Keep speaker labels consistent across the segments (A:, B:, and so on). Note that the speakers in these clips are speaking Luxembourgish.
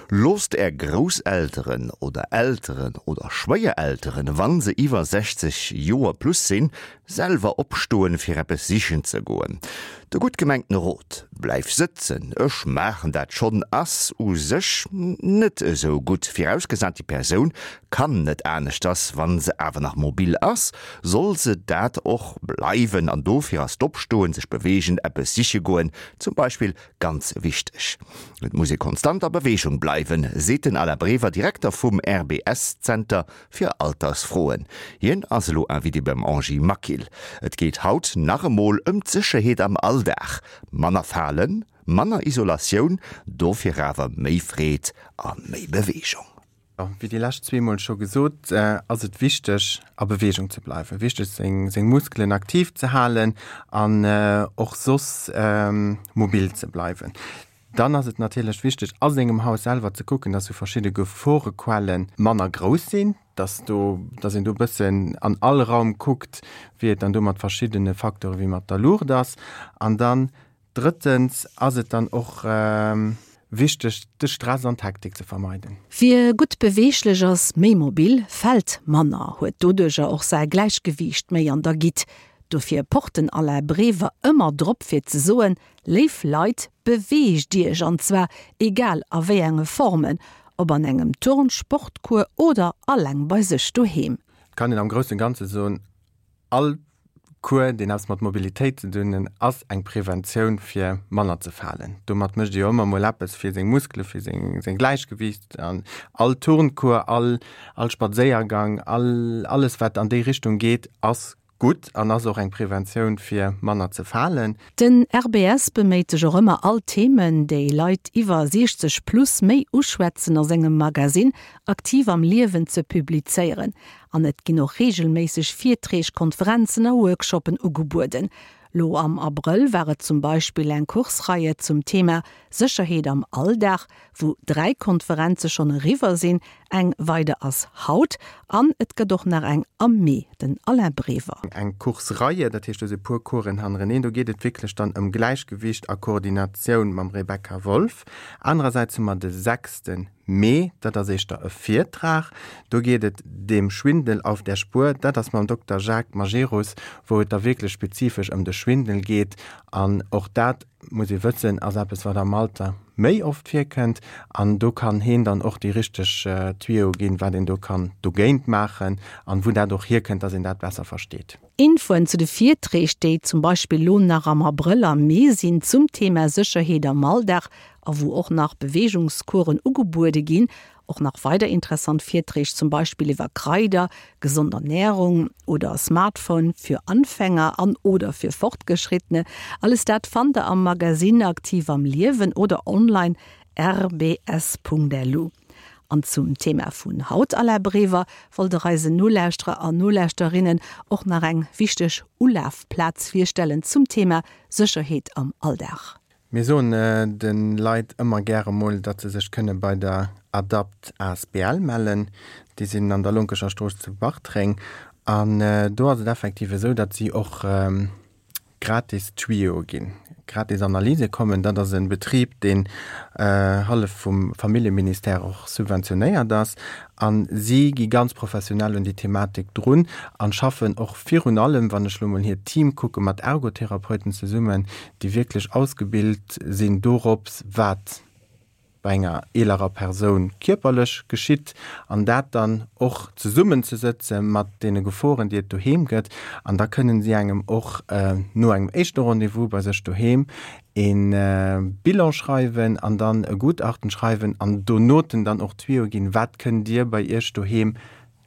A: Loosst Är Grousselteren oder Elteren oder Schwéierelteren, wa se iwwer 60 Joer plus sinn, selwer opstoen, fir eppes sichen ze goen. De gutt gemengten Rot, Bleif sëtzen, ech maachen dat schonn, ass u sech net esou gutt, virausgesat déi Persoun kann net aneschters. Wa se awer nach mobil ass, soll se dat och bleiwen an dofir ass d'Opstoen, sech beweegen, eppes siche goen zum Beispill Ganz wichteg, Et muss ee konstant a Beweegung bleiwen, seet den Alain Brever, Direkter vum RBS-Zenter fir Altersfroen. Hien ass elo Invité beim Angie Maquil. Et geet haut nach emol ëm d'Sécherheet am Alldag. Manner falen, manner Isolatioun, dofir awer méi Freed a méi Beweegung.
B: Wéi déi lescht zweemol scho gesot, ass et wichteg a Beweegung ze bleiwen, wichteg seng seng Muskelen aktiv ze halen an och soss mobil ze bleiwen. Dann ass et natierlech wichteg a sengem Haus selwer ze kucken, dass sou verschidde Geforequelle manner grouss sinn, dass do dass een do e bëssen an all Raum kuckt, wéi et dann do mat verschiddene Facteure wéi mat der Luucht ass. An dann Drëttens ass et dann och wichteg, de Stress an d'Hektik ze vermeiden.
C: Wie gutt beweeglech ass, méi mobil, fält manner, huet doduercher och säi Gläichgewiicht méi an der Gitt. Dofir pocht den Alain Brever ëmmer drop fir ze soen, Léif Leit, beweegt Iech, an zwar egal a wéi enge Formen, ob an engem Turn-, Sportcours oder alleng bei sech doheem.
B: Et kann een am groussen Ganze soen, All Cours, deen eppes mat Mobilitéit ze dun hunn, ass eng Preventioun fir manner ze falen. Domat mécht ee jo ëmmer mol eppes fir seng Muskele, fir seng seng Gläichgewiicht. An all Turncours, all all Spadséiergang, all alles wat an déi Richtung geet, ass gutt an ass och eng Preventioun fir manner ze falen.
C: Den RBS beméit sech och ëmmer all Themen, déi Leit iwwer 60 plus méi uschwätzen a sengem Magasinn Aktiv am Liewen ze publizéieren. An et ginn och reegelméisseg Virträg, Konferenzen a Workshoppen ugebueden. Lo am Abrëll war et zum Beispill eng Kursreihe zum Thema Sécherheet am Alldag, wou 3 Konferenze schonn eriwwer sinn, eng weider ass haut an et gëtt och nach eng am Mee. Den Alain Brever.
B: Eng Kursreihe, dat heescht do si puer Coursen hannereneen, do geet et wierklech dann ëm Gläichgewicht a Koordinatioun mam Rebecca Wolff. Anerersäits hu mer de sechste Mee, dat ass éischter e Virtrag, do geet et Dem Schwindel auf der Spur, dat ass mam Dokter Jacques Majerus, wou et da wierklech spezifesch ëm de Schwindel geet. An och dat, muss ee wëssen, ass eppes, wat am Alter méi oft virkënnt. An do kann heen dann och déi richteg Tuyau ginn, wat een do kann dogéint maachen an wou dat och hierkënnt, dass een dat besser versteet.
C: Infoen zu de Virträg, déi zum Beispill lo nach am Abrëll a Mee sinn, zum Thema Sécherheet am Alldag a wou och nach Beweegungscoursen ugebuede ginn. Och nach weider interessant Virträg, zum Beispill iwwer Kraider, gesond Ernährung oder Smartphone für Anfänger an oder für Fortgeschrittene. Alles dat fannt der am Magazine Aktiv am Liewen oder online rbs.lu. An zum Thema vun haut, Alain Brever, wollt der eisen Nolauschterer an Nolauschterinnen och nach eng wichteg Ulafplaz virstellen zum Thema Sécherheet am Alldag.
B: Mir soen de Leit ëmmer gäre mol, datt se sech kënne bei der Adapt asbl mellen. Déi sinn an der Lonkecher Strooss zu Bartreng. An do ass et effektiv esou, datt si och gratis Tuyau ginn, gratis Analyse kommen. Dat ass e Betrib, deen hallef vum Familljeministère och subventionéiert ass. A si gi ganz professionell un déi Thematik drun a schaffen och virun allem, wann ech elo mol hiert Team kucken, mat Ergotherapeuten zesummen, déi wierklech ausgebilt sinn dorops, wat bei enger eelerer Persoun kierperlech geschitt an dat dann och zesummenzesëtze mat deene Geforen, déi et doheem gëtt. An da kënnen si engem och no engem éischte Rendez-vous bei sech doheem e Bilan schreiwen an dann e Gutachten schreiwen an donoten dann och Tuyau ginn, wat kënnt Dir bei Iech doheem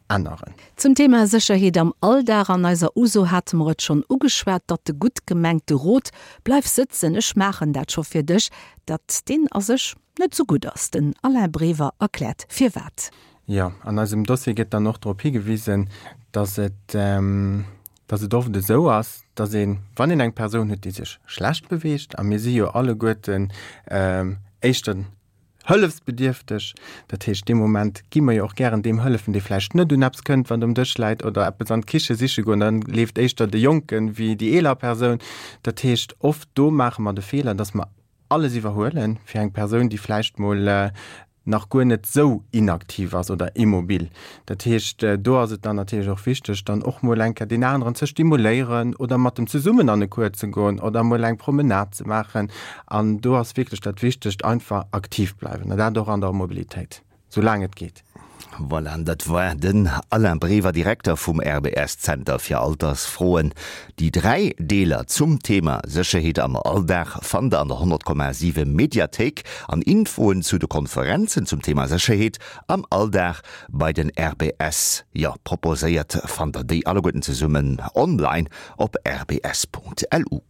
B: änneren.
C: Zum Thema Sécherheet am Alldag, An eiser Uso hate mer et schonn ugeschwat, datt de gutt gemengte Rot, Bleif sëtzen, ech maachen dat scho fir dech, datt deen a sech net sou gutt ass. Den Alain Brever erkläert firwat.
B: Jo, an eisem Dossier gëtt dann och drop higewisen, datt et, datt et oft esou ass, datt een, wann een eng Persoun huet, déi sech schlecht beweegt, a mir si jo alleguerten éischter Hëllefsbedierfteg, dat heescht dee Moment gi mer jo och gären deem hëllefen, dee vläicht net un eppes kënnt, wat um Dësch läit oder eppes an d'Kiche siche goen, dann leeft éischter de Jonken wéi déi eeler Persoun. Dat heescht oft do maache mer de Feeler, dass mer alles iwwerhuelen fir eng Persoun, déi vläicht mol. nach guer net sou inaktiv ass oder immobil. Dat heescht, do ass et dann natierlech och wichteg, dann och mol eng Kéier deen aneren ze stimuléieren oder mat em zesummen an e Cours ze goen oder mol eng Promenade ze maachen. An do ass wierklech dat Wichtegt, einfach aktiv bleiwen, an dat och an der Mobilitéit, sou laang et geet.
A: Voilà, an dat war den Alain Brever, Direkter vum RBS-Zenter fir Altersfroen. Déi 3 Deeler zum Thema Sécherheet am Alldag fannt der an der 100,7 Mediathéik an Infoen zu de Konferenzen zum Thema Sécherheet am Alldag bei den RBS, jo, proposéiert fannt der déi alleguerten zesummen online op rbs.lu.